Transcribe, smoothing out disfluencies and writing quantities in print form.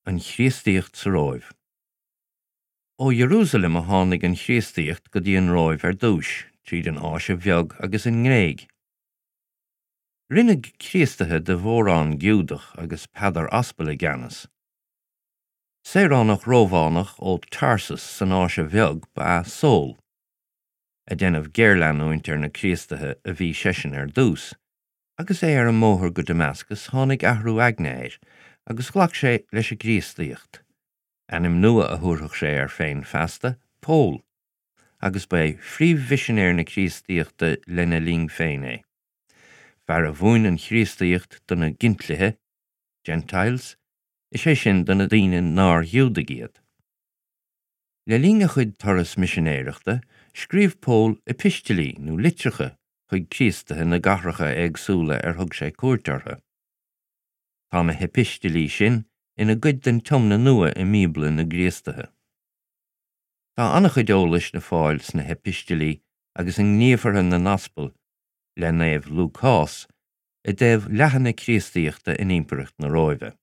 An Chríostaíocht sa Róimh. Ó Iarúsailéim a tháinig an Chríostaíocht go dtí an Róimh ar dtúis, tríd an Áise Bheag agus an nGréig. Rinneadh Críostaithe de mhórán Giúdach agus Peadar Aspal i gceannas. Saoránach Rómhánach ó Tarsus san Áise Bheag ba ea Sól. Ag déanamh géarleanúint ar na Críostaithe a bhí seisean ar dtús, Agus é ar an mbóthar go Damascus tháinig athrú aigne air agus ghlac sé leis an gCríostaíocht. Ainm nua a thabharfadh sé air féin feasta, Pól, agus ba é phríomh-mhisinéir na Críostaíochta lena linn féin é. Fear a mhúin an Chríostaíocht do na Gintlithe, Gentiles, is é sin do na daoine nár Ghiúdaigh iad. Le linn a chuid turas misinéireachta, scríobh Pól epistilí nó litreacha chuig Críostaithe na gcathracha éagsúla ar thug sé cuairt orthu. Tá na heipistilí sin ina gcuid den Tiomna Nua i mBíobla na gCríostaithe. Tá an-chuid eolais le fáil sna heipistilí agus i nGníomhartha na nAspal le Naomh Lúcás i dtaobh leathadh na Críostaíochta in Impireacht na Róimhe.